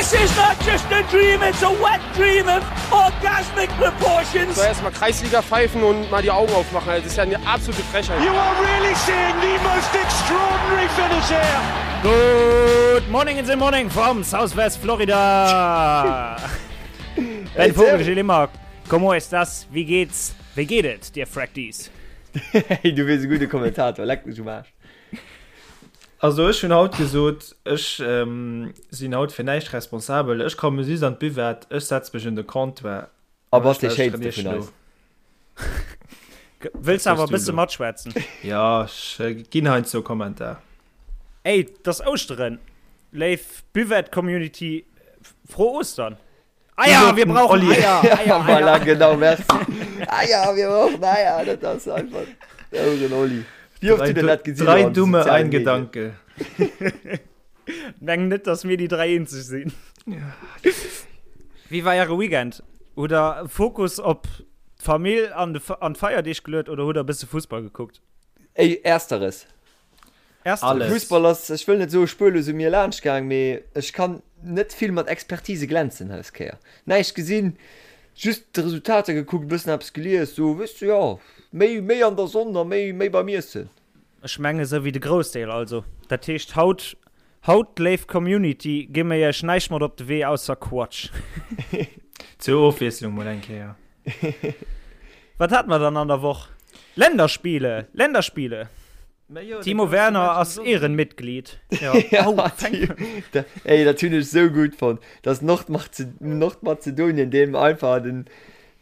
This is not just a dream, it's a wet dream of orgasmic proportions. So erstmal Kreisliga pfeifen und mal die Augen aufmachen. Das ist ja eine absolute Frechheit. You are really seeing the most extraordinary finish here. Good morning in the morning from Southwest Florida. Ben Vogel, Gilles Immer, como estas? Wie geht's? Wéi geet et dir Fracties? Hey, du wiers e gudde Kommentator, leck mech um Aarsch. Also ech hunn haut gesot, ech sinn haut fir näischt responsabel, ech komme just an d'Buvette, ech setze mech un de Comptoir A bass dee Schéinste vun eis. Wëlls awer e bësse matschwätzen? Jo, ech ginn heiansdo e Kommentar. Ey, 't ass Ouschteren, léif Buvette-Community, froh Ostern! Eier, wir brauchen Eier, Eier, Eier. Voilà, genau, merci. Eier, wir brauchen Eier. Dat ass einfach euren Olli. Wie oft du denn dat gesinn? Drei Dumme, ein Gedanke. Meng net, dass mir déi drei eenzeg sinn. Wéi war äre Weekend? Hutt der Fokus op d'Famill an d'Feierdeeg geluet oder hutt der e bësse Fussball gekuckt? Ey, ersteres. Ersteres. Fussball ass, ech wëll net soe spuerlos u mir laanscht gaang, mee ech kann net vill mat Expertise glänzen dës Kéier. Näischt gesinn, just d'Resultater gekuckt, e bëssen eppes gelies, sou weess de, jo, méi méi an der Sonn a méi méi beim Iessen. Ech menge sou wéi de Groussdeel also. Dat heescht haut, haut léif Community, gi mir iech näischt mat op de Wee ausser Quatsch. Zur Ofwiesslung mol eng Kéier. Wat hate mer dann an der Woch? Länderspiele, Länderspiele! Timo Werner ass Ehrenmitglied. Ja, Ey, dat hunn ech sou gutt fonnt, dass Nordmazedonien deem einfach den,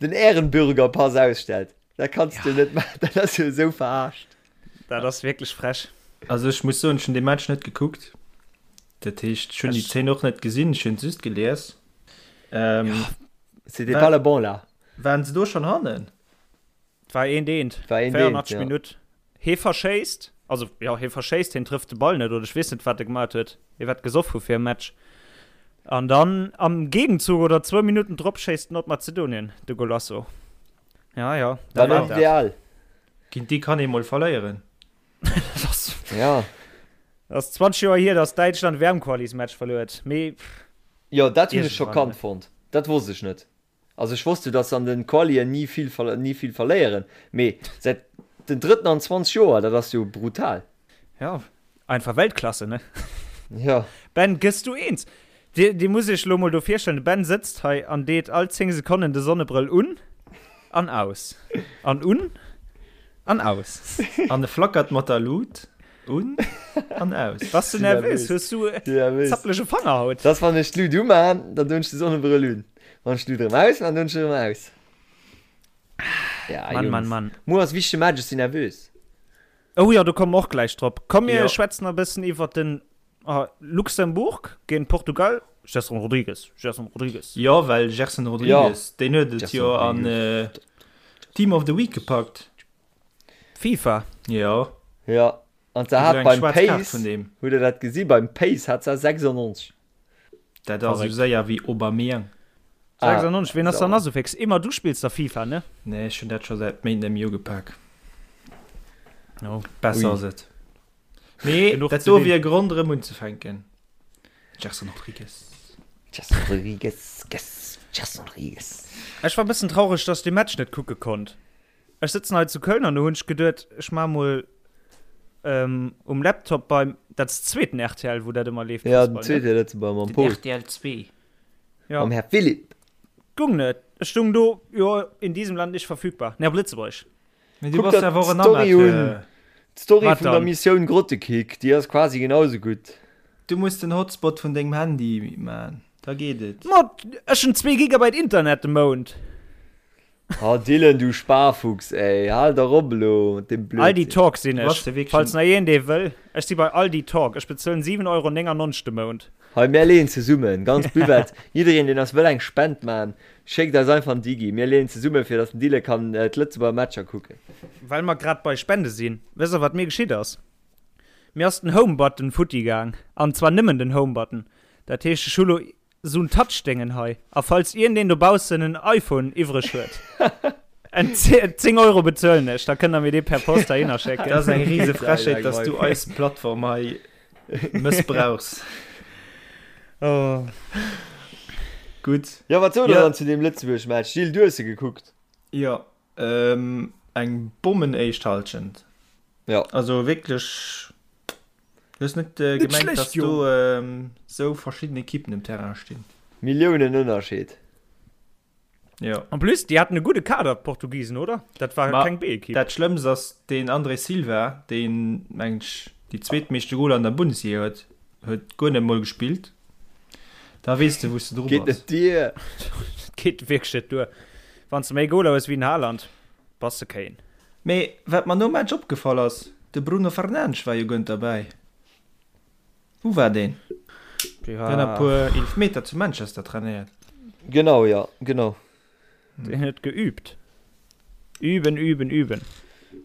den Ehrenbürgerpass ausstellt. Dat kanns du net maachen, dat ass jo esou verarscht. Dat ass wierklech frech. Also ech muss soen, ech hunn dee Match net gekuckt. Dat heescht, ech hunn déi Zeen och net gesinn, ech hunn se just gelies. C'était pas le bon là. Waren se do schonn hannen? Et war eent eent, 84 Minutt. Hee verschéisst, also jo, hee verschéisst, hien trëfft de Ball net oder ech weess net, wat e gemaat huet. Hie wäert gesoff hu fir e Match. An dann am Gegenzug oder zwou Minutten drop schéisst Nordmazedonien de Golasso. Ja, ja, dat war dat. Ideal. Géint déi kann ee mol verléieren. Dat ass, ja. Dat ass 20 Joer hier, datt Däitschland WM-Qualismatch verluer huet. Mee Jo, dat hunn ech schockant fonnt. Dat wosst ech net. Also ech wosst jo dass se an den Qualien ni vill ni vill verléieren, mee säit den drëtten an 20 Joer, dat ass jo brutal. Ja, einfach Weltklasse, ne? Ja. Ben, gëss du eens? Dir, dir muss iech lo mol do virstellen, de Ben sëtzt hei an deet all 10 Sekonnen de Sonnebrëll un an aus. An un an aus. An e flackert mat der Lut un an aus. Bass du nervös? Hues du zappelege Fanger haut? Dass wann ech d'Lut umaan, dann doen ech de Sonnebrëll un. Wann ech d'Lut erëm aus man, dann ech erëm aus. Ja, Mann, Mann, Mann. Muer ass wichtege Match, ech sinn nervös. Oh jo, do komme mer och gläich drop. Komm mir ja. schwätzen e bëssen iwwer den oh, Luxemburg géint Portugal. Gerson Rodrigues, Gerson Rodrigues. Jo, well Gerson Rodrigues, ja. deen huet et jo an äh, Team of the Week gepackt. FIFA. Jo. Ja. An se hat beim Pace, hutt der dat gesi beim Pace hat se 96. Dat ass esou séier wéi Aubameyang. 96, wien ass dann nach esou fix? Emma, du spills da FIFA, ne? Nee, ech hunn dat scho säit Méint net méi ugepak. Oh. Besser ass et. Mee dat do wier e Grond erëm unzefänken. Gerson Rodrigues. Gerson Rodrigues, Gerson Rodrigues. Ech war e bëssen traureg, dass ech dee Match net kucke konnt. Ech sëtzen hei zu Köln an do hunn ech geduet, ech maache mol um Laptop beim, dat ass zweeten rtl, wou dat ëmmer leeft, Ja, den zweete Lëtzebuerger mam Paul. Den rtl 2. Ja. Mam Här Philipp. Gung net. Ech stung do, jo, in diesem Land nicht verfügbar. Nee, op Lëtzebuergesch. Mee du Kuck bass der awer och en d'Story un. Amateur. D'Story Wat vun der dann? Missioun Grottekick, déi ass quasi genau sou gutt. Du muss den Hotspot vun dengem Handy man, da geet et. Ma ech hunn zwee Gigabyte Internet de Mount. Oh Dylan, du Sparfuchs ey, hal dach op elo mat deem Aldi Blödsinn. Talk sinn Du bass ech, jo wierklech falls en. nach een dee wëll. Ech si bei Aldi Talk, ech bezuelen 7,99 Euro de Mount. Hei, mär leeën zesummen, ganz Buvette, jiddereen deen eis wëll eng Spend man, schéckt eis einfach en Digi, mir leeën zesummen fir dass den Dylan kann d'Lëtzebuerger Matcher kucken. Well mer grad bei Spende sinn, wësst der wat mir geschitt ass? Mir ass den Home Button futti gaang, an zwar nëmmen den Home Button. Dat heescht ech hu lo So'n Touchdéngen hei. A falls iergendeen dobaussen en iPhone iwwreg huet, en 10 Euro bezuelen ech, da kënnt der mir dee per Post heihinner schécken. Dat ass eng rise Frechheet, dass du eis Plattform hei mëssbrauchs. Oh. Gutt. Jo, wat sot der dann zu deem Lëtzebuerg-Match? Gilles, du hues se gekuckt. Jo, eng Bommen éischt Hallschent. Jo. Also wierklech, du hues net gemengt, dass do esou verschidden Ekippen um Terrain stinn. Milliounen Ënnerscheed. Jo. En plus, déi haten e gudde Kader, d'Portugisen, oder? Dat war keng B-Ekipp. Dat Schlëmmst ass, deen André Silva, deen, mengen ech, déi zweetmeeschte Goler an der Bundesliga huet, huet guer net mol gespillt. Da weess de, wou s de dru Geet bass. net duer. Dat geet wierklech net duer. Wann s de méi Goler hues wéi den Haaland, bass de kéin. Mee wat mer nom Match opgefall ass, de Bruno Fernandes war jo guer net derbäi. Wou war deen? Dee Deen huet e war. puer Eelefmeter zu Manchester trainéiert. Genau, jo, genau. Deen huet geübt. Üben, üben, üben.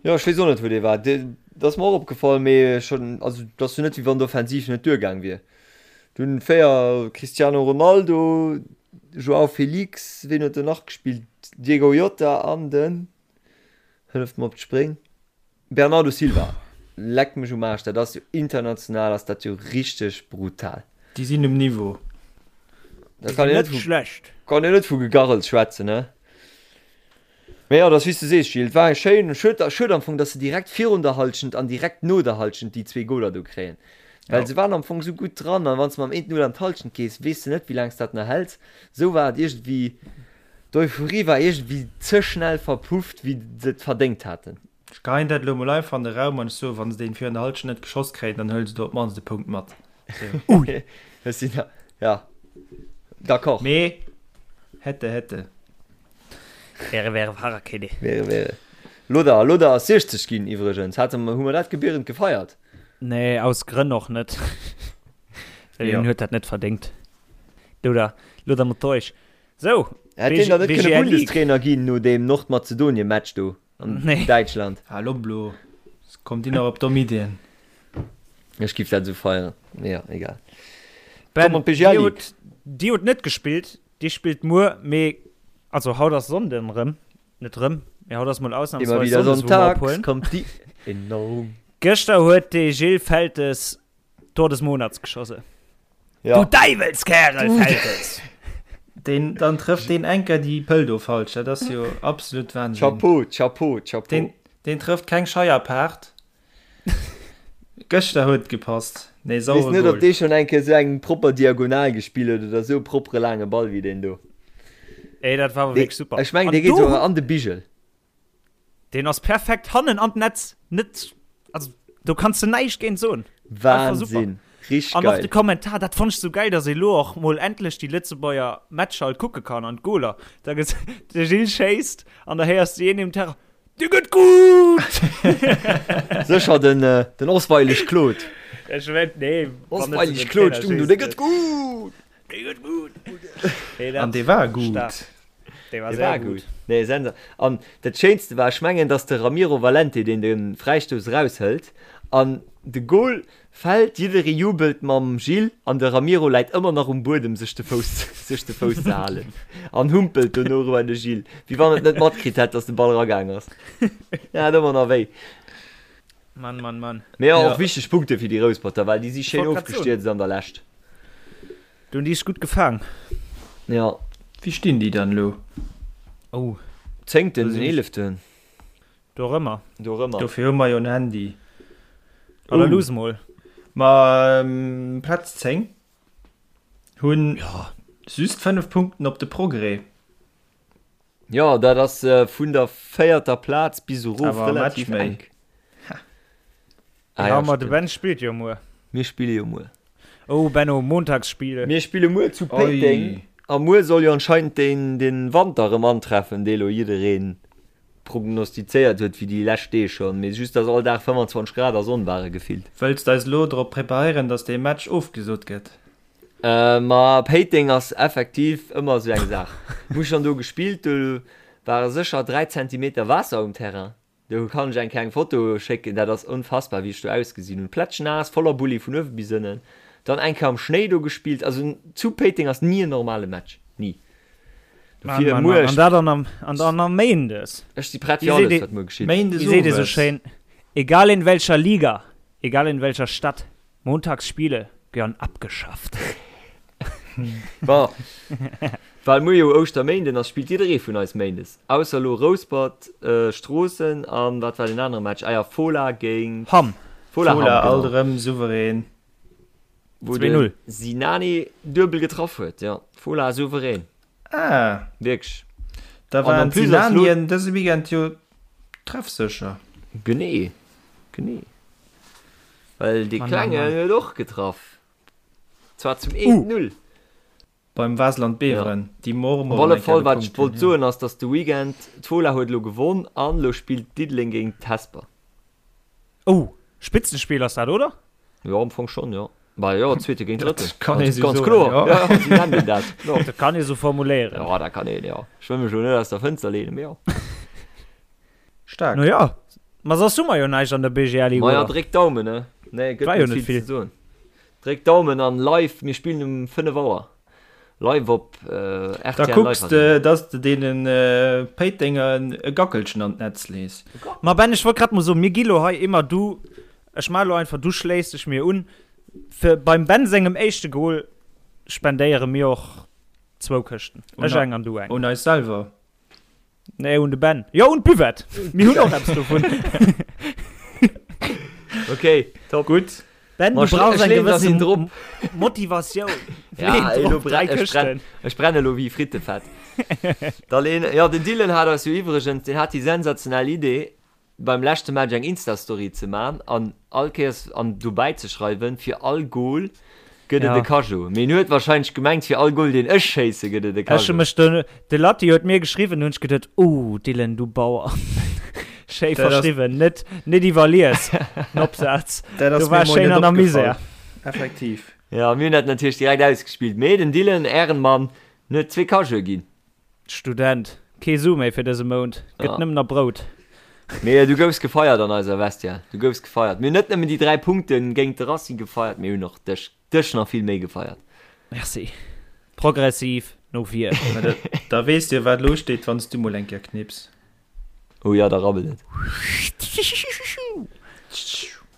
Jo, ech weess och net, wou dee war. Dee, dat ass mer och opgefall, mee schonn, also et ass jo net, wéi wann d'Offensiv net duergaang wier. Dunn 4, Cristiano Ronaldo, Joao Felix, ween huet do nach gespillt? Diego Jota an den, hëlleft mer op d'Spréng, Bernardo Silva, leck mech um Aarsch, dat ass jo international ass dat jo richteg brutal. Déi sinn um Niveau. Da kann een Net net vu, schlecht. kann een net vu Gegarrels schwätzen, ne? Mee jo, dat ass wéi s du sees, Gilles, et war eng schéin, schued, schued am Fong, dass se direkt virun der Hallschent an direkt no der Hallschent déi zwee Goler do kréien, well Jo. se waren am Fong esou gutt dran an wann s de mam 1-0 an d'Hallschent gees, weess de net, wéi laang s dat nach häls. Esou war et iergendwéi, d'Euphorie war iergendwéi ze schnell verpufft, wéi se et verdéngt haten. Ech geheien dat elo mol einfach an de Raum an ech soen, wann se deen virun der Halschent net geschoss kréien, dann huele se do op d'mannst e Punkt mat. Ui! Ech sinn da, ja, d'accord. Mee hätte, hätte. Wäre, wäre Fahrradkette. Wäre, wäre. Loder, Loder ass 60 ginn iwwregens. Hate mer, hu mer dat gebührend gefeiert? Nee, aus Grënn och net. Well Jo. hien huet dat net verdéngt. Loder, Loder Matthäus. Sou, Hätt deen dann net kënne BGL League. Bundestrainer ginn no deem Nordmazedonien-Match do? An Nee. Däitschland. Hal op elo, kommt dir nach op domm Iddien. Ech giff dat esou feieren, mee ja, egal. Ben, Komm an d'BGL dir League. hutt, dir hutt net gespillt, dir spillt muer, mee also haut ass Sonnden rëm, net rëm, mee haut ass mol Immer ausnahmsweis wieder Sonndes, wou mer sonntags ophuelen. kommt die Erinnerung. Gëschter huet de Gilles Feltes Tor des Monats geschossen. Ja. Du Däiwelskerel, Feltes! Deen, dann trëfft deen Enker déi Pëll do falsch, dat ass jo absolut Wahnsinn. Chapeau, Chapeau, Chapeau. Deen, deen trëfft keng Scheierpaart. Gëschter huet et gepasst. Nee, Weess sauere net, ob Goal. dee schonn eng Kéier esou eng propper Diagonal gespillt huet oder esou e proppere laange Ball wéi deen do. Ey, dat war awer Dee, wierklech super. ech mengen, An dee geet do souguer an de Bigel. Deen ass perfekt hannen an d'Netz, net, also do kanns de näischt géint soen. Einfach super. Wahnsinn, richteg An och de geil. Kommentar, dat fonnt ech sou geil, dass ee lo och mol endlech déi Lëtzebuerger Matcher halt kucke kann an d'Goler. Da ges de Gilles schéisst an da héiers de een im Terrain, Dee gëtt gutt! Sécher den, den Osweilig Claude. Ech wett, nee, wann net Osweilig den Claude Trainer stung do, schéisst dee gëtt net. gutt! Dee gëtt gutt! Nee, dat An dee war gutt. stark. Dee war Dee sehr war gutt. gutt. Nee, sensa. An dat Schéinste war, ech mengen, dass de Ramiro Valente, deen de Fräistouss eraushëlt an de Gol fält, jidderee jubelt mam Gilles an de Ramiro läit ëmmer nach um Buedem sech de Fouss sech de Fouss ze halen an humpelt dono eriwwer de Gilles, wéi wann et net matkritt hätt, dass de Ball eragaang ass. En hat ëmmer nach wéi. Mann, Mann, Mann. Mee jo, Ja. och wichteg Punkte fir déi Rousperter, well déi si schéin Wollt grad soen. ofgestierzt an der Lescht. Du hunn déi sech gutt gefaang. Ja. Wéi stinn déi dann elo? Oh. Zéngten, eeleften. Dorëmmer. Dorëmmer. Dofir hu mer jo en Handy. Oder luuss mol. Ma Plaz 10 hunn just 5 Punkten op de Progrès. Jo, dat ass vun der véierter Plaz bis erof Awer e relativ Match méi. enk. Ah, Ja, ja, ma de stimmt. Ben spillt jo muer. Mir spille jo muer. Oh Benno, Montagsspiele. Mir spille muer zu Péiteng Oi. a muer soll jo anscheinend den, den Wanter erëm antreffen, dee lo jidderee prognostizéiert huet wéi déi lescht Deeg schonn, mee just dass all Dag 25 Grad a Sonn ware gefillt. Wëlls d'eis elo drop preparéieren, dass dee Match ofgesot gëtt? Ma Péiteng ass effektiv ëmmer esou eng Saach. Hu schonn do gespillt, do ware sécher 3 Zentimeter Waasser um Terrain. Do kann ech eng kleng Foto schécken, dat ass unfassbar wéi ech do ausgesinn hunn. Plätschnaass, voller Bulli vun uewe bis ënnen. Dann eng Kéier am Schnéi do gespillt. Also zu Péiteng ass ni en normale Match, ni. Mann, Dofir Mann, muer, Mann. An dat an am, an dann am Méindes. ech si prett Wéi fir seet alles ee, wat muer geschitt. Méindes wéi seet ee sou owes. schéin, Egal in welcher Liga, egal in welcher Stadt, Montagsspiele gehören abgeschafft. Bon, well muer jo Ouschterméinden ass, spillt jidderee vun eis méindes. Ausser elo Rouspert, Stroossen an wat war deen anere Match? Ah ja, Fola géint Hamm. Fola Hamm, Fola alt genau. erëm souverän. Wou de 2-0. Sinani duebel getraff huet, jo. Fola souverän. Ah. Wierklech. Da An waren en plus ass lo. d'Sinanien dëse Weekend jo treffsécher. Genee, genee. Well dee Mann, Mann, Klengen Mann. huet och getraff. Zwar zum 1-0. Beim Waasland Beveren, déi Op Mormor alle eng Kéier Fall, wat ech gepunkt wollt hunn, jo. soen, ass, dass de Weekend, d'Fola huet elo gewonn an elo spillt Diddeleng géint Hesper. Oh, Spitzenspiel ass dat, oder? Jo, am Fong schonn, jo. Bah jo, Zweete géint Drëtten. Dat kann ee Ganz, sou ganz soen, kloer. jo. Ja, ja, sou nennt een dat. Jo. Dat kann ee sou formuléieren. Jo, dat kann een, jo. Ech wëll mech elo net aus der Fënster leenen, mee jo. Staark. No ja, ma soss hu mer jo näischt an der BGL-Ligue, Maja, oder? dréck Daumen, ne? Nee, gëtt War jo net net vill vill. ze soen. Dréck Daumen an live, mir spillen um 5 Auer live op Da rtl kucks Live de, Arena. dass de deene Péitenger e Gackelchen an d'Netz lees. Ma Ben, ech wollt grad mol soen, mir gi lo hei immer du, ech maache lo einfach, du schléiss dech mir un, fir beim Ben sengem éischte Goal spendéiere mir och zwou Këschten, ech eng an du eng. Un eis selwer. Nee, un de Ben. Jo, un d'Buvette. Mir hunn och eppes dovun. Okay, top. Gutt. Ben, Ma du brauchs ech eng leen gewësse dass drop. Motivatioun. Ja, Leen elo drop, brenn, dräi ech brenn, Këschten. ech brenne elo wéi Frittefett. Da leen, ja, den Dylan hat eis jo iwwregens, deen hat déi sensationell Idee, beim leschte Match eng Insta-Story ze man an all Kéiers an dobäi ze schreiwen, fir all Goal gëtt et Ja. e Cageot. Mee en huet wahrscheinlech gemengt, fir all Goal deen ech schéisse gëtt et e Ech hu Cageot. mech de, de Latti huet mir geschriwwen, hunn ech geduet, oh Dylan, du Bauer. Schéi Dat ass- verschriwwen, net, net iwwerlies, den Opsaz. Dat ass Du war mir mol schéin net an der opgefall. Misär. Effektiv. Ja, mir hunn dat natierlech direkt ausgespillt. Mee den Dylan, Ehrenmann, en huet zwee Cageote ginn. Student, Kee Su méi fir dëse Mount, gëtt Ja. nëmmen nach Brout. Mee du goufs gefeiert an eiser Vestiaire. Du goufs gefeiert. Mir hunn net nëmmen déi 3 Punkte géint de Racing gefeiert, mir hunn och dech, dech nach vill méi gefeiert. Merci. Progressiv no vir. Mä da, da weess de jo, wat elo steet, wann s du mol eng Kéier knips. Oh ja, da rabbelt et.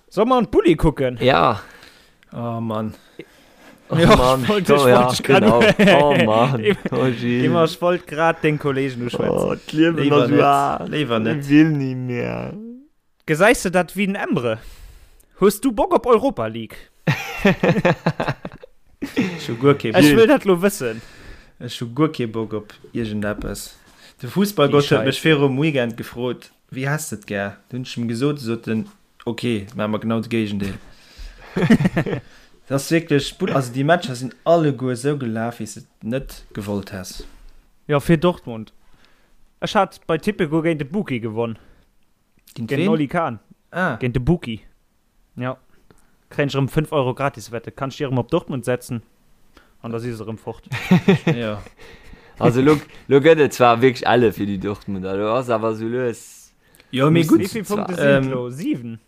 Solle mer an d'Bulli kucken? Ja. Oh Mann. Oh Ja, Mann. ich wollt, Oh ich ja, wollt grad, genau. Oh Mann. Oh Gilles. Immer, ich wollt grad den Kollegen uschwätzen. Oh, d'Liewen Léiwer ass net. wahr. Léiwer net. Ich will nie mehr. Gesäis de dat wéi den Emre? Hues du Bock op Europa League? Ech hu guer kee Ech Bock. wëll dat lo wëssen. Ech hu guer kee Bock op iergendeppes. De Fussballgott Déi huet mech Scheiss. virum Weekend gefrot, Wéi häss de et gär? Du hunn ech em gesot, sot en, Ok, maache mer genau de Géigendeel. Dat ass wierklech, also déi Matcher sinn alleguer esou gelaf, wéi s de et net gewollt häss. Jo, fir Dortmund. Ech hat bei Tipico géint de Buki gewonn. Géint Géint den ween? Oli Kahn. Ah. Géint de Buki. Jo. Kréien ech erëm 5 Euro Gratiswette. Kann ech déi erëm op Dortmund setzen an da si se erëm fort. Jo. Also lo, lo gëtt et zwar wierklech elle fir déi Dortmunder, lo ass awer sou lues. Jo, mee gutt. Wéi vill Punkte sinn Ähm, et lo? 7?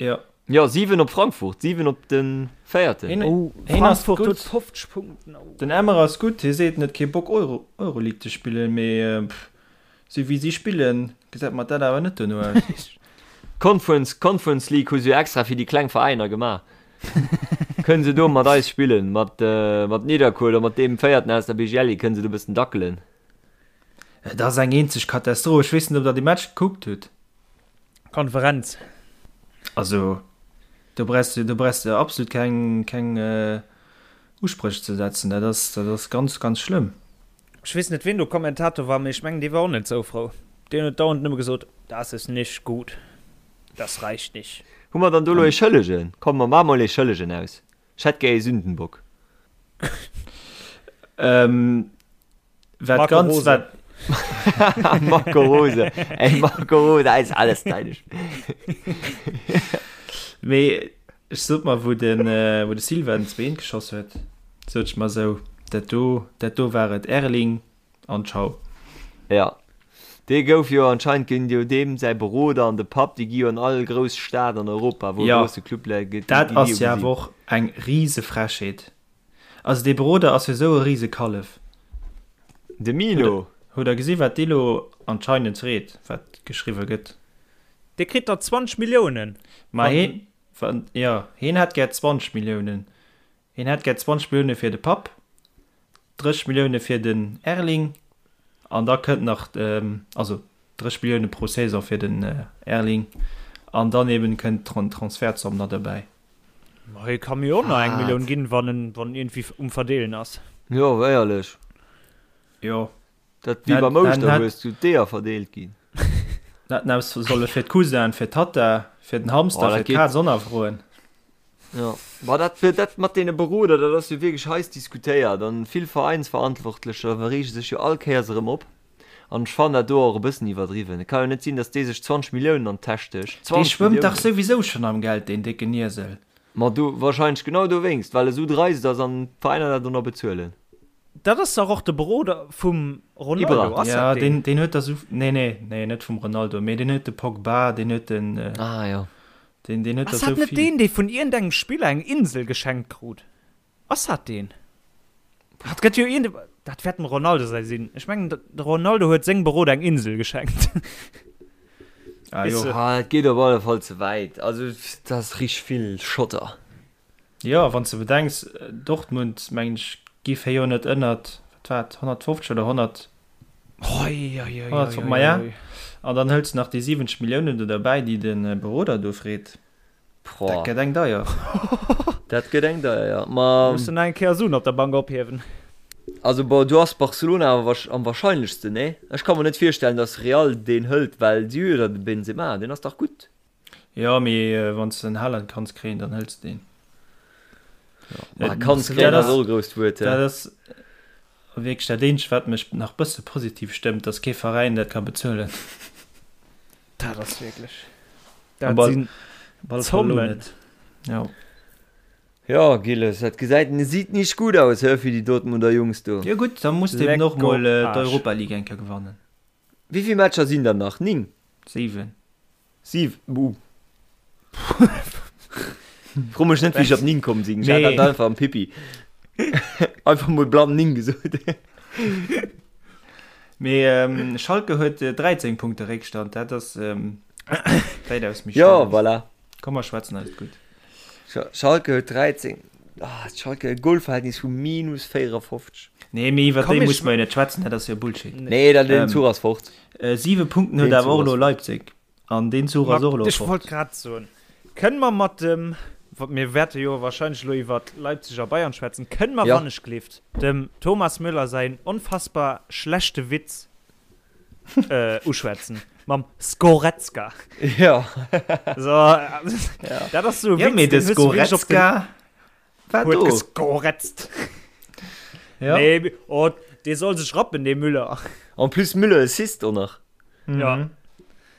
Jo. Jo, 7 op Frankfurt, 7 op de Véierten. Hien, Oh, hien ass Frankfurt huet gutt. 50 Punkten. Oh. Den Emre ass gutt, hie seet, en huet kee Bock Euro, Euroleague ze spillen, mee pff, sou wéi si spillen, gesäit mer dat awer net dono aus. Conference, Conference League hu se jo extra fir déi kleng Veräiner gemaach. Kënnen se do mat eis spillen, mat, mat Nidderkuer oder mat deem Véierten aus der BGL, kënnen se do e bëssen dackelen. Et ass eng eenzeg Katastroph. Ech weess net, ob der dee Match gekuckt hutt. Konferenz. Also do brauchs de, do brauchs de absolut keng, keng Uspréch ze setzen. Dat ass, dat ass ganz, ganz schlëmm. Ech weess net ween do Kommentator war, mee ech mengen dee war och net sou frou. Deen huet dauernd nëmme gesot, Das ist nicht gut, das reicht nicht. Hu mer dann do elo ee Schëllegen? Komm mer maache mol ee Schëllegen aus. Ech hätt gär ee Sündenbock. Ähm, Wat Marco ganz Rose. wat Marco Rose. Ey, Marco Rose, ist alles deine. Mee ech sot mer wou den äh, wou de Silva den Zween geschoss huet, sot ech mer sou, dat do dat do war et Erling an ciao. Ja. Dee gouf jo anscheinend ginn jo deem säi Beroder an de Papp, déi gi jo an all grouss Stad an Europa, wou e Ja, grousse Club läit, déi dat gi jo ass jo awer gesinn. och eng rise Frechheet. Also dee Beroder ass jo sou e rise Kallef. De Mino. Hutt der gesi wat dee lo anscheinend freet, wat geschriwwe gëtt? Dee kritt der 20 Milliounen. Ma heen, jo, heen hätt gär 20 Milliounen. Hien hätt gär 20 Millioune fir de Papp, 30 Millioune fir den Erling an da kënnt nach, also 30 Millioune pro Saison fir den Erling an dann eben kënnt d'Transfertzomm nach dobäi. Ma hie ka mir och nach eng Millioun ginn, wann en wann en iergendwéi um Verdeelen ass. Jo, éierlech. Jo. Dat wéi beim Ouschterhues, wou d'Eeër verdeelt ginn. Hätten aus solle fir d'Cousinen, fir d'Tatta, fir den Hamster, fir d'Kaz och nach froen. Jo, ma dat fir dat mat deene Beroder, dat ass jo wierklech heiss diskutéiert an vill Veräinsverantwortlecher reege sech jo all Kéiers erëm op. An ech fannen dat do och e bëssen iwwerdriwwen. Et ka jo net sinn, datt dee sech 20 Milliounen an d'Täsch stécht. Dee 20 schwëmmt dach Milliounen! souwisou schonn am Geld, deen décken Iesel. Ma do wahrscheinlech genau dowéinst, well e sou dreist ass an d'Veräiner dat och nach bezuelen. Dat ass dach och de Beroder vum Ronaldo, Ibra. ass Ja, dat deen? deen, deen huet der sou, nee, nee, nee, net vum Ronaldo, mee deen huet de Pogba, deen huet den, Ah jo. deen, deen huet der Ass dat sou net vill. deen, dee vun iergendengem Spiller eng Insel geschenkt krut? Ass dat deen? Dat gëtt jo iergend, dat wäert dem Ronaldo säi sinn. Ech mengen, de Ronaldo huet sengem Beroder eng Insel geschenkt. Ah jo. Ah, dat geet op alle Fall ze wäit. Also, dat ass richteg vill Schotter. Jo, wann s de bedenks, Dortmund, mengen ech, giff hei jo net ënnert, wat war et, 150 oder 100, 100, maja, an dann hëls de nach déi 70 Milliounen do derbäi, déi de Beroder do freet. Dat gëtt eng deier. Dat gëtt eng deier, jo. Ma. Muss en eng Kéier Suen op der Bank ophiewen. Also bon, do ass Barcelona awer am wahrscheinlechsten, nee? Ech ka mer net virstellen, datt Real deen hëlt, well si hu jo da de Benzema, deen ass dach gutt. Jo, mee wann s de den Haaland kanns kréien, dann hëls de deen. Ma kanns kréien ass och e grousst Wuert, he? Dat ass wierklech dat eenzegt, wat mech nach bësse positiv stëmmt, datt kee Veräin dat ka bezuelen. Dat ass wierklech. Dat sinn Zommen. Jo. Jo, Gilles, dat gesäit sieht nicht gut aus, hä, fir déi Dortmunder Jungs do. Jo gutt, da muss de eben och mol d'Europa League eng Kéier gewannen. Wéi vill Matcher sinn der nach? 9? 7. 7, uh. Fro mech net, wéi ech op 9 komm sinn. Ech hat dat einfach am Pipi. Einfach mol blann 9 gesot. Mee Schalke huet 13 Punkte Réckstand, dat ass wäitaus méi schlëmm. Jo, voilà. Komm mer schwätzen eis gutt. Schalke huet 13, ah, Schalke e Golverhältnis vu minus 54. Nee, mee iwwer déi muss mer jo net schwätzen, dat ass jo Bullshit. Nee, dat den Zuch ass fort. 7 Punkten huet awer och elo Leipzig an deen Zuch ass och elo fort. Ech wollt grad soen, kënne mer mat dem, mir wäerte jo wahrscheinlech elo iwwer Leipzig a Bayern schwätzen, kënne mer wannechgelift dem Thomas Müller säin onfassbar schlechte Witz uschwätzen mam Sgoretzka. Jo. So, dat ass sou e Witz, mee de Sgoretzka war do. Huet gesgoretzt. Ja. Nee, oh, dee soll sech rappen, dee Müller. En plus Müller Assist och nach. Ja. Dat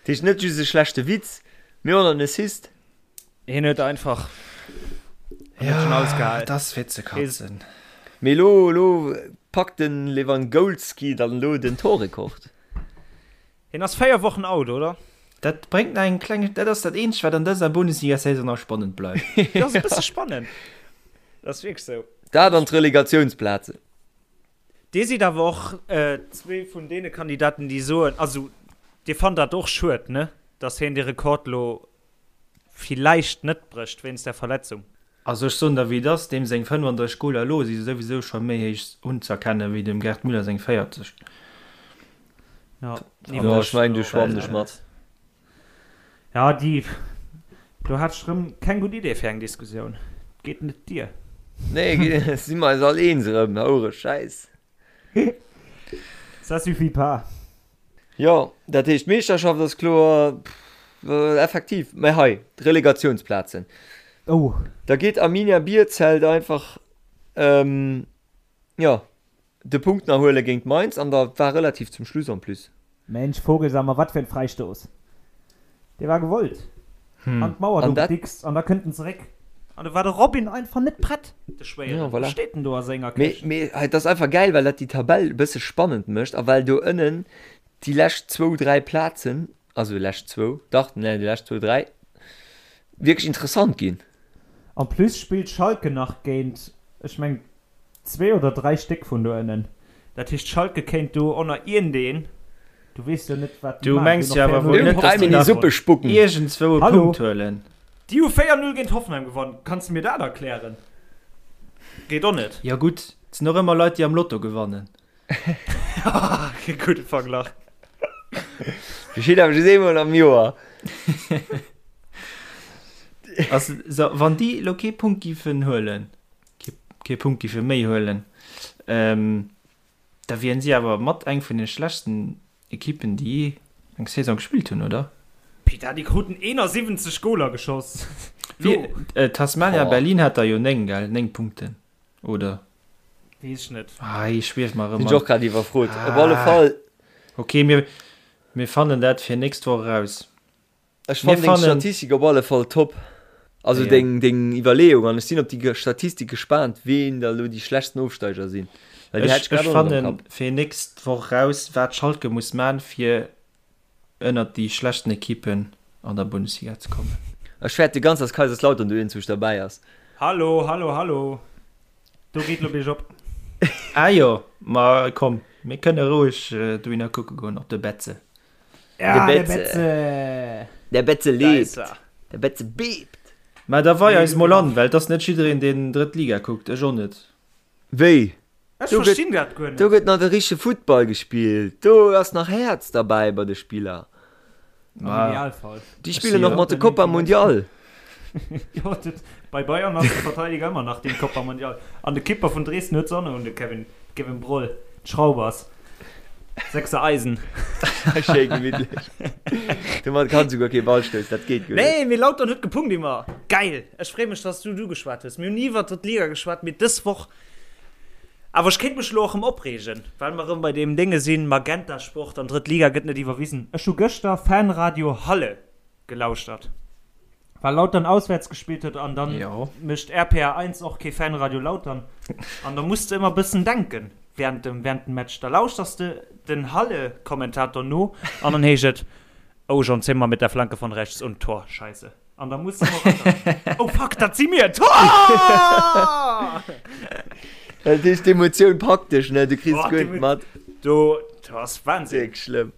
heescht net just e schlechte Witz, mee och nach en Assist. Hien huet einfach ja, das fir ze katzen. Mee lo, lo packt den Lewangolski dann lo den Torrekord. Hien ass 4 Wochen out, oder? Dat bréngt nach eng kleng, dat ass dat eenzegt wat an dëser Bundesliga-Saison nach spannend bleift. Dat ass e bësse spannend. Dat ass wierklech sou. Dat an d'Relegatiounsplazen. Dir sidd awer och zwee vun deene Kandidaten, déi soen, also Dir fannt dat och schued, ne, datt hien dee Rekord lo villäicht net brécht wéinst der Verletzung. Also ech soen der wéi et ass, deem seng 35 Goler elo si souwisou scho méi héich unzerkennen wéi dem Gerd Müller seng 40. Ja, Jo, ech mengen do schwammen ech mat. Ja, déi, do hat ech rëm keng gutt Idee fir eng Diskussioun. Geet net dier. Nee, si mer eis all eens erëm, houre Schäiss. Ça suffit pas. Jo, dat heescht d'Meeschterschaft ass kloer, effektiv. Mä hei, d'Relegatiounsplazen. Oh. Da geet Arminia Bielefeld einfach, jo, de Punkt nach huele géint Mainz an da war relativ zum Schluss en plus. Mensch Vogelsammer, wat fir en Fräistouss! Dee war gewollt an d'Mauer do gedickst an da kënnt en zeréck an do war de Robin einfach net prett, de Schwéieren. Voilà. Steet en do a senger Këscht. Mee et ass einfach gäil, well dat déi Tabell e bësse spannend mécht a well do ënnen déi lescht zwou, dräi Plazen, also lescht zwou, dach, nee, déi lescht zwou, dräi wierklech interessant ginn. En plus spillt Schalke nach géint, ech mengen, Zwee oder 3 Stéck vun do ënnen. Dat heescht Schalke kéint do ënner iergendeen, du weess jo net wat déi Du maachen, mengs déi jo hunn awer och wuel 4-0 net, géint dass déi Einmal in die nach Suppe spucken. iergendzwou e Hallo? Punkt huelen. Déi hu 4-0 géint Hoffenheim gewonnen. Kanns de mir dat erklären? Geet och net. Jo gutt, et sinn och ëmmer Leit, déi am Lotto gewannen. Gudde Verglach. Geschitt awer just eemol am Joer. Also, so, wann déi elo kee Punkt giffen huelen, kee, kee Punkt giffe méi huelen, ähm, da wieren si awer mat eng vun de schlechtsten Ekippen, déi jee eng Saison gespillt hunn, oder? Peter, déi kruten 71 Goler geschoss. Wie, äh, Tasmania Berlin hat der jo 9, gell? 9 Punkten, oder? Weess ech net. Ah, ech schwief mer erëm. Sinn ech och grad iwwerfrot. Op alle Fall. Ok, mir, mir fannen dat fir nächst Woch eraus. Ech fannen deng Statistik op alle Fall top. Also deng, deng Iwwerleeung. An ech sinn op déi Statistik gespaant, ween da lo déi schlechtsten Ofsteiger sinn. Well déi hat ech grad och net am Kapp. Ech fannen fir nächst Woch raus, wat Schalke muss man, fir ënnert déi schlechten Ekippen an der Bundesliga ze kommen. Ech fäerte ganz, dass Kaiserslautern do iergendwousch derbäi ass. Hallo, hallo, hallo. Do geet lo biergop. Ah jo, ma komm, mir kënne roueg dohinner kucke goen, op de Betze. Ja, de Betze! De Betze lebt! De Betze bebt! Mä da wei eis mol an, well et ass net jiddereen, deen drëtt Liga kuckt, ech och net. Wéi? Ech verstinn dat guer net. Do gëtt nach de richtege Futtball gespillt, do ass nach Häerz derbäi bei de Spiller. Am Idealfall. Déi spillen och mat de Copa Mundial. Jo, dat, bei Bayern ass de Verteidiger ëmmer nach den Copa Mundial. An de Kipper vun Dresden huet se och nach un, de Kevin, Kevin Broll, d'Schraubers. Sechser Eisen. Schéi gemittlech. Domat kann souguer kee Ball stoussen, dat geet guer net. Nee, mee Lautern huet gepunkt immer. Geil! Ech free mech, dass du du geschwat hues. Mir hunn ni iwwer d'drëtt Liga geschwat, mee dës Woch. Awer ech kéint mech elo och erëm opreegen, well mer erëm bei deem Dénge sinn, Magenta Sport an drëtt Liga gëtt net iwwerwisen. Ech hu gëschter Fanradio Halle gelauschtert, well Lautern auswäerts gespillt huet an dann mécht RPR 1 och kee Fanradio Lautern an da muss de ëmmer bëssen denken während dem während dem Match. Da lauschters de den Halle-Kommentator no an dann heescht et, Oh John Zimmer mit der Flanke von rechts und Tor, Scheisse. An da muss de ëmmer Oh fuck, dat si mir! Tor! Dat heescht d'Emotioun packt dech, ne? Du kriss guer net mat. Do, dat ass Wahnsinn. Wierklech schlëmm.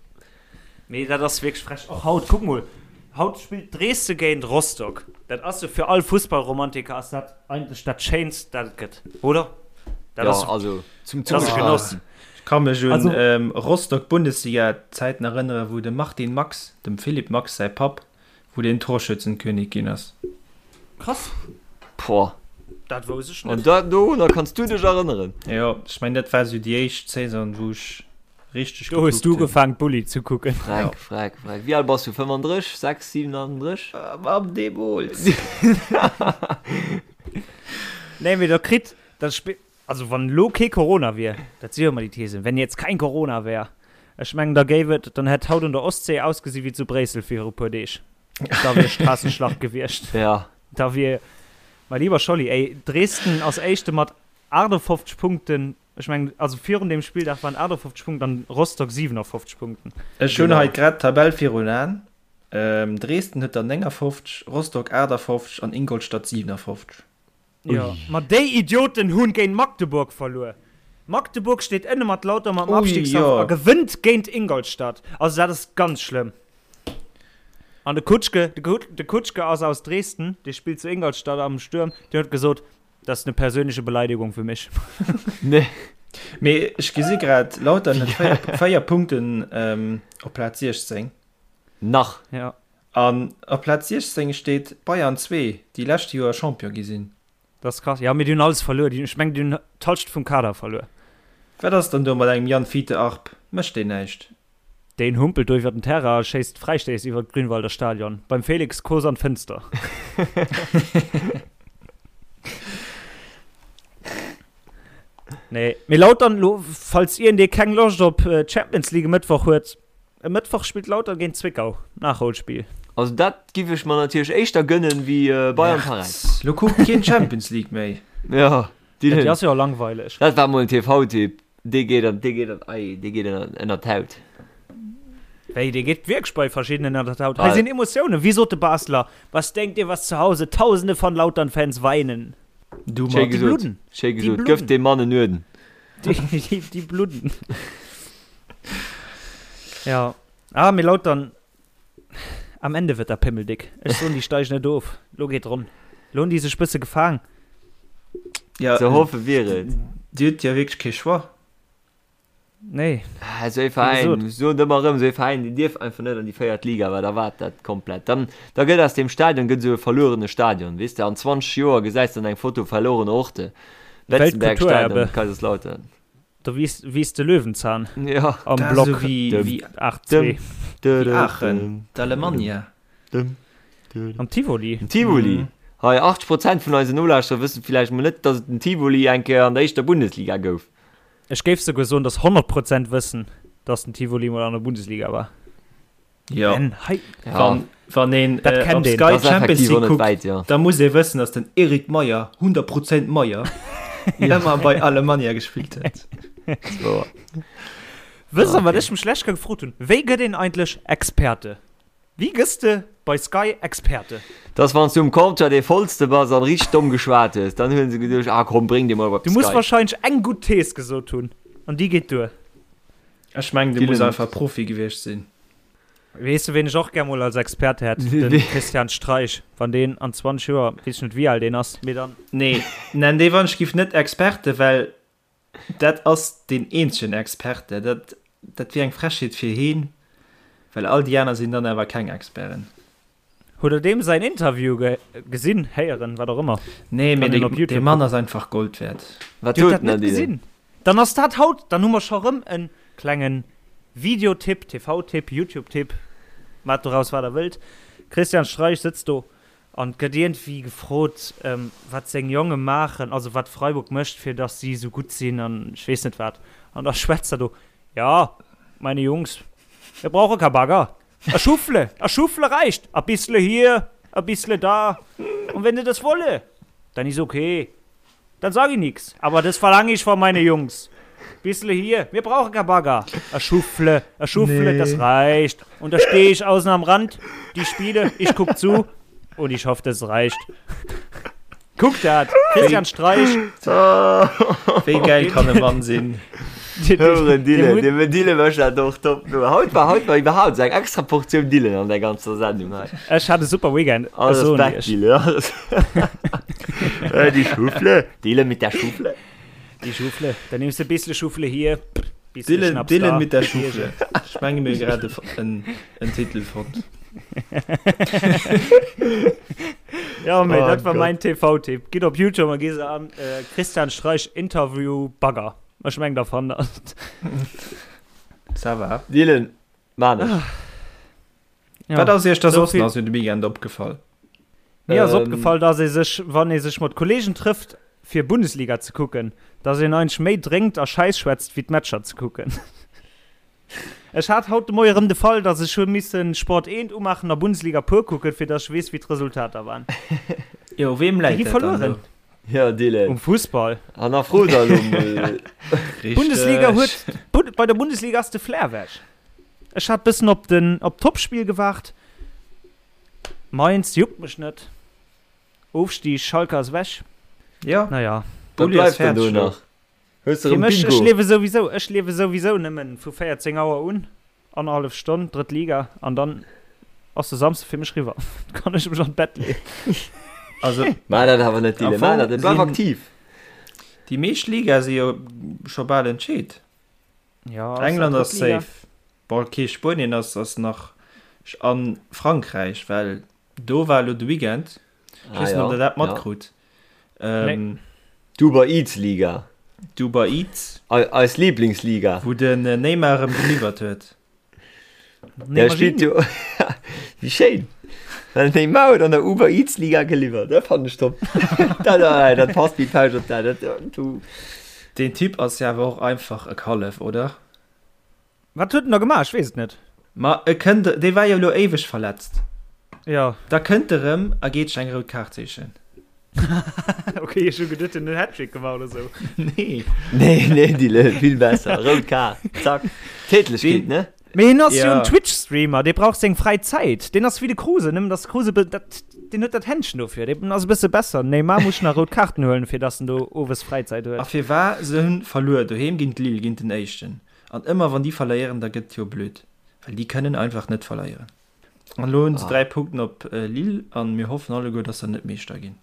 Mee dat ass wierklech frech. Och haut, kuck mol, haut spillt Dresden géint Rostock. Dat ass jo fir all Fussballromantiker ass dat eigentlech dat Schéinst, dat et gëtt, oder? Dat ass, also zum dat ass e Genoss. Ech ka mech un Rostock-Bundesliga-Zäiten erënneren, wou de Martin Max, dem Philipp Max säi Papp, wou deen Torschützenkönig ginn ass. Krass. Boah. Dat wousst ech net. An dat dorunner kanns du dech erënneren? Jo, ech mengen dat war sou déi éischt Saison wou ech richteg Do hues gekuckt du hunn. ugefaang Bulli ze kucken. Freck, freck, freck. Wéi al bass du? 35, 6, 37? Mam deemools. Nee, mee da kritt dat Spill, also wann elo kee Corona wier, dat si jo ëmmer déi Thesen, wenn jetzt kein Corona wär, ech mengen da géif et, dann hätt haut un der Ostsee ausgesi wéi zu Bréissel viru puer Deeg. Da wier Straßenschlacht gewiescht. Ja. Da wier, mein lieber Scholli, ey, Dresden ass Éischte mat 58 Punkten, ech mengen, also virun deem Spilldag waren 58 Punkten an Rostock 57 Punkten. Ech hunn hei grad d'Tabell virun Aen. Dresden huet der 59, Rostock 58 an Ingolstadt 57. Jo, ma déi Idioten hunn géint Magdeburg verluer. Magdeburg steet ënne mat Lauter mam Abstiegskampf a gewënnt géint Ingolstadt. Also dat ass ganz schlëmm. An de Kutschke, de Kutschke ass aus Dresden, dee spillt zu Ingolstadt am Stuerm, deen huet gesot, Das ist eine persönliche Beleidigung für mich. Nee. Mee ech gesi grad, Lautern huet 4, 4 Punkten op Plaz 16. Nach. Ja. An op Plaz 16 steet Bayern 2, déi lescht Joer Champion gi sinn. Dat ass krass. Ja, mee déi hunn alles verluer. Déi, ech mengen, déi hunn d'Halschent vum Kader verluer. Wat ass dann do mat engem Jan Fiete Arp? Mécht deen näischt? Deen humpelt do iwwer den Terrain a schéisst Fräistéiss iwwer d'Grünwalder Stadion. Beim Felix Kos an d'Fënster. Nee, mee Lautern lo, falls iergendee keng Loscht op Champions League e Mëttwoch huet, E Mëttwoch spillt Lautern géint Zwickau, Nachholspill. Also dat giff ech mer natierlech éischter gënnen wéi Bayern Paräis. Lo kuckt keen Champions League méi. Jo, déi ass jo langweileg. Dat war mol en TV-Tipp, dee geet an, dee geet an, ei, dee geet ënnert d'Haut. Wéi, dee geet wierklech bei verschiddenen ënnert d'Haut. Hei sinn Emotiounen, wéi sot de Basler, Was denkt ihr, was zu Hause tausende von Lautern-Fans weinen? Du Schéi mat. gesot, bludden. schéi Déi gesot. Gëff bludden. deem Mann en Uerden. Déi, déi, déi bludden. Ja. Ah, mee Lautern, am Ende wird der Pimmel dick. Ech soen, déi steigen net of. Lo geet ronn. Lo hunn déi sech bësse gefaang. Ja, Ze hoffe wier et. Dir hutt jo wierklech kee Choix. Nee. Ah, esou ee Veräin, ech soen et ëmmer erëm, esou ee Veräin, deen dierf einfach net an déi véiert Liga, well da waart dat komplett. Dann, da gëtt aus deem Stadion gëtt esou e verluerene Stadion, weess de, an 20 Joer gesäis de dann eng Foto verlorene Orte, Weltkulturerbe. Betzenbergstadion, Kaiserslautern. Do wiisst, wiisst de Löwenzahn Ja. am Dat ass Block esou wéi, Dëm, wéi, 8-2. dëm, wéi Aachen, dëm, d'Alemannia. dëm, dëm. Am Tivoli. Den Tivoli. Mhm. Hei, 80 Prozent vun eisen Nolauschterer wëssen villäicht mol net, dass et den Tivoli eng Kéier an der éischter Bundesliga gouf. Ech géif souguer soen, dass 100 Prozent wëssen, dass den Tivoli mol an der Bundesliga war. Jo. Ben, hei. Ja. Wann, wann een Dat äh, kennt op een. Sky Das ass Champions effektiv League och net kuckt, wäit, ja. da muss ee wëssen, dass den Eric Meyer, 100 Prozent Meyer, ëmmer bei Alemannia gespillt huet. So. Wësst der, Ah, wat okay. ech mech lech gefrot hunn? Wéi gëtt een eigentlech Experte? Wéi gëss de bei Sky Experte? Dass wanns du um Comptoir dee vollste bass an richteg domm geschwat hues, dann hunn se geduecht, ah komm bréng dee mol op Du muss Sky. wahrscheinlech eng gutt Thees gesot hunn an déi geet duer. Ech mengen, du muss Dylan. einfach Profi gewiescht sinn. Weess de ween ech och gär mol als Experte hätt? Den Christian Streich. Wann deen an 20 Joer, weess ech net wéi al deen ass, mee dann. Nee, nenn dee wann ech giff net Experte, well Dat ass deen eenzegen Experte. Dat, dat wier eng Frechheet fir heen, well all déi aner sinn dann awer keng Experten. Hutt der deem säin Interview ge gesinn, héieren, wat och ëmmer? Nee, mee Kann een op dee, Youtube dee Mann kucken. ass einfach Gold wäert. Wat Dir hutt huet dat den net Adil? gesinn? Dann ass dat haut, dann hu mer scho rëm en klengen Videotipp, TV-Tipp, YouTube-Tipp, maacht doraus wat der wëllt. Christian Streich sëtzt do An et gëtt iergendwéi gefrot, wat seng Jonge maachen, also wat Freiburg mécht, fir datt si esou gutt sinn an ech weess net wat. An da schwätzt er do, Ja, meine Jungs, wir brauche kein Bagger. A Schuffle, a Schuffle reicht. A bissle hier, a bissle da. Und wenn se das wolle, dann is okay. Dann sag ich nix. Aber das verlange ich von meine Jungs. Bissle hier, wir brauchen kein Bagger. A Schuffle, a Schuffle, Nee. das reicht. Und da stehe ich außen am Rand, die Spiele, ich guck zu und ich hoffe, das reicht. Guck dat, Christian Streich. Wéi geil kann e Mann sinn? Hören Dille, de Dille mécht dat och top. Haut war haut war iwwerhaupt eng extra Portioun Dillen an der ganzer Sendung hei. Ech hat e super Weekend. Ech Alles soen Respekt, iech. Dille. Alles. Äh, Die Schuffle. Dille mit der Schuffle. Die Schuffle. Dann nimmst du e bissle Schuffle hier, bissle Dillen, Schnaps Dillen da. mit der Schuffle. Ech menge mir grad e, en, en Titel fonnt. Ja, mee Oh dat war Gott. mein TV-Tipp. Gitt op YouTube a gitt se an äh, Christian Streich Interview Bagger. Ech meng der fannt dat. Ça va. Dylan, man ech. Ja. Wat ass iech da So soss vill- nach sou de Weekend opgefall? Mir ass Ähm, opgefall, dass ee sech, wann ee sech mat Kollegen trëfft, fir Bundesliga ze kucken, dass een eigentlech méi drénkt a Schäiss schwätzt, wéi d'Matcher ze kucken. Ech hat haut de Moie rëm de Fall, dass ech hu missen Sport 1 umaachen a Bundesliga pur kucken, fir dass ech weess, wéi d'Resultater waren. Jo, weem Déi läit gi dat dann verlueren. elo? Ja, Dylan. Um Fussball. Hannerfro da elo mol. Bundesliga Richteg. huet, Bund, bei der Bundesliga ass de Flair weg. Ech hat bëssen op den, op d'Topspiel gewaart. Mainz juckt mech net. Ofstig, Schalke ass weg. Ja, Naja. Wat Bulli ass bleift denn fäerdeg do elo. nach? Hues de Fir erëm mech, ech Bingo? liewe souwisou, ech liewe souwisou nëmmen vu 14 Auer un, annerhallef Stonn, drëtt Liga, an dann ass de Samsde fir mech riwwer. Da kann ech mech an d'Bett leeën. Also, Maach dat awer net, am Dylan. Maach Fong dat net. Bleif sinn aktiv. déi meescht Ligae si jo scho bal entscheet. Ja, ass dat England ass drëtt Liga? safe. Bon, okay, Spuenien ass, ass nach an Frankräich, well do war elo de Weekend. Ech Ah weess net, ob ja, der dat ja. matkrut. Ähm, D'Uber Eats Liga. D'Uber Eats. Eis Lieblingsliga. Wou den Neymar erëm geliwwert huet. Der spillt jo. Wéi schéin! Den Neymar huet an der Uber Eats Liga geliwwert, dat fannen ech top. Dat, dat passt wéi d'Fauscht op d'A. Dat, du. Deen Typ ass jo awer och einfach e Kallef, oder? Wat huet en da gemaach? Ech weess et net. Ma e kënnt, dee war jo elo éiweg verletzt. Jo. Da kënnt e rëm a geet sech eng rout Kaart sichen. Ok, ech hu geduet, en huet en Hattrick gemaach oder sou. Nee. Nee, nee, Dille, vill besser. Rout Kaart, zack. Tätlechkeet, ne? Mee hien ass jo Ja. en Twitch-Streamer, dee brauch seng fräi Zäit. Deen ass wéi de Kruse, nëmmen dass de Kruse be, dat, deen huet dat Händchen dofir, deen ass e bësse besser. Den Neymar muss nach rout Kaarten huelen, fir dass en do owes Fräizäit A huet. firwar? Se hunn verluer doheem géint Lille, géint den Éischten. An ëmmer wann déi verléieren, da gëtt jo blöd, well déi kënnen einfach net verléieren. An elo hunn se 3 Punkten op Lille an mir hoffen alleguer, dass se net Meeschter ginn.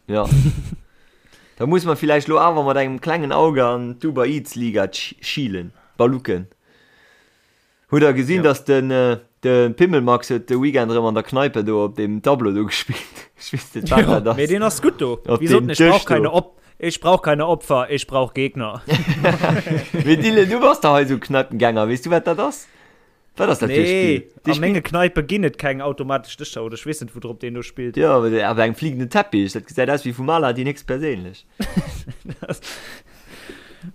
Jo. Da muss mer villäicht lo awer mat engem klengen Auge an d'Uber Eats Liga schielen, balucken. Hutt der gesinn, dass den de Pimmelmax huet de Weekend erëm an der Kneipe do op deem Tableau do gespillt? Ech weess net, wat dat ass. Mee deen ass gutt do. Op Wéi sot deem en, ech brauch Dësch do. keine Op, ech brauch keine Opfer, ech brauch Gegner. Mee Dylan, du bass dach hei esou Kneipengänger, weess du wat dat ass? Wat ass dat fir e Nee, Spill? Dee a menge spillt. Kneipe ginn et keng automatesch Dëscher oder ech weess net, woudrop deen do spillt. Jo, awer awer engem fliegenden Teppich, dat gesäit aus wéi vum Aladdin héchstperséinlech.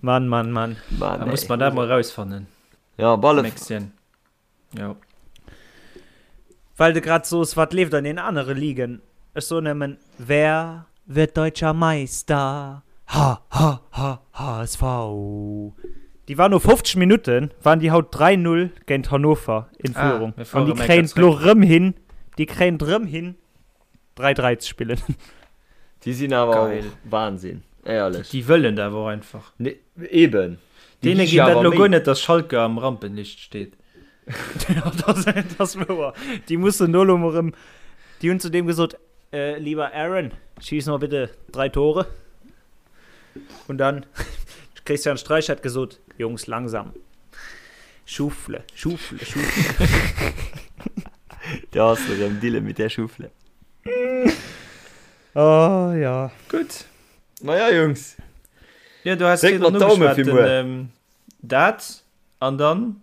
Mann, Mann, Mann. Mann, Da muss ey. mer dat mol erausfannen. Ja, op alle. Mäxchen. Jo. Well de grad soos, wat leeft an den anere Ligen? Ech soen nëmmen, Wer wird deutscher Meister? Ha ha ha HSV! Déi war no 50 Minutten waren déi haut 3, 0 géint Hannover in Ah, Führung. mir An fuere déi méi kréien grad et lo zréck. rëm hin, déi kréien et rëm hin 3, 3 ze spillen. Déi sinn awer Geil. och Wahnsinn, éierlech. Déi wëllen dat awer och einfach. Nee, eben. Déi Deene gi geet sech dat awer lo Méi. guer net, dass Schalke am Rampenlicht steet. Ja, das, das wouer. Déi mussen do lo mol rëm, déi hunn zu deem gesot, äh, lieber Aaron, schieß mal bitte drei Tore. Und dann, Christian Streich hat gesot, Jungs, langsam. Schufle, Schufle, Schufle. Da ass erëm Dille mit der Schufle. Oh ja. Gutt. Maja, Jungs. Ja, du hast Dréck virdrun mer d'Daume ugeschwat, fir den, muer. ähm, dat an dann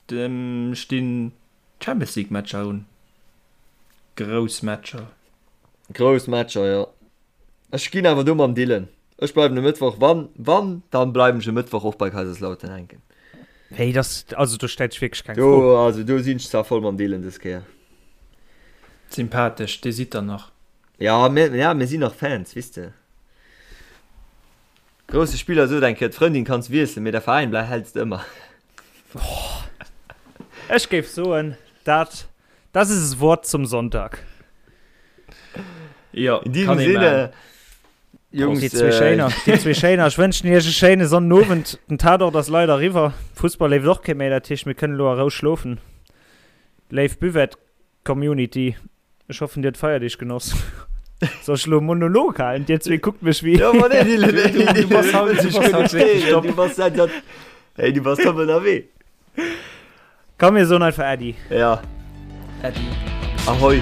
dem stinn Champions League Matcher un. Grouss Matcher. Grouss Matcher, jo. Ech ginn awer do mam Dylan. Ech bleiwen e Mëttwoch, wann, wann, dann bleiwen ech e Mëttwoch och bei Kaiserslautern hänken. Nee, das, also do stellt sech wierklech keng Do, Fro. also do sinn ech zwar voll mam Dylan dës Kéier. Sympathesch, dir sidd der nach. Ja, mir, ja, mir sinn nach Fans, weess de. Grousse Spiller sot eng Kéier, d'Frëndin kanns wiesselen, mee der Veräin blei häls de ëmmer. Ech géif soen, dat, das ist es Wort zum Sonntag. Jo, In diesem kann ee Sinne, maachen. Jungs, Déi zwee Schéiner, déi zwee Schéiner. Ech wënschen iech e schéine Sonnenowend. Den Tatort ass leider eriwwer. Fussball leeft och kee méi, dat heescht, mir kënnen elo a Rou schlofen. Léif Buvette-Community, ech hoffen, dir hutt d'Feierdeeg genoss. Soll ech elo e Monolog halen? Dir zwee kuckt mech wéi. Ja, ma nee, Dylan, Du bass haut, du bass haut wierklech top. Du bass seit, hey, du bass top ënnerwee. Komm mir soen einfach Äddi. Ja. Äddi. Ahoi.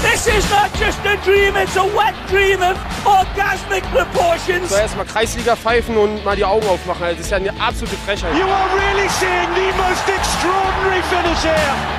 This is not just a dream, it's a wet dream of orgasmic proportions. So erstmal Kreisliga pfeifen und mal die Augen aufmachen. Also, das ist ja eine absolute Frechheit. You are really seeing the most extraordinary finish here.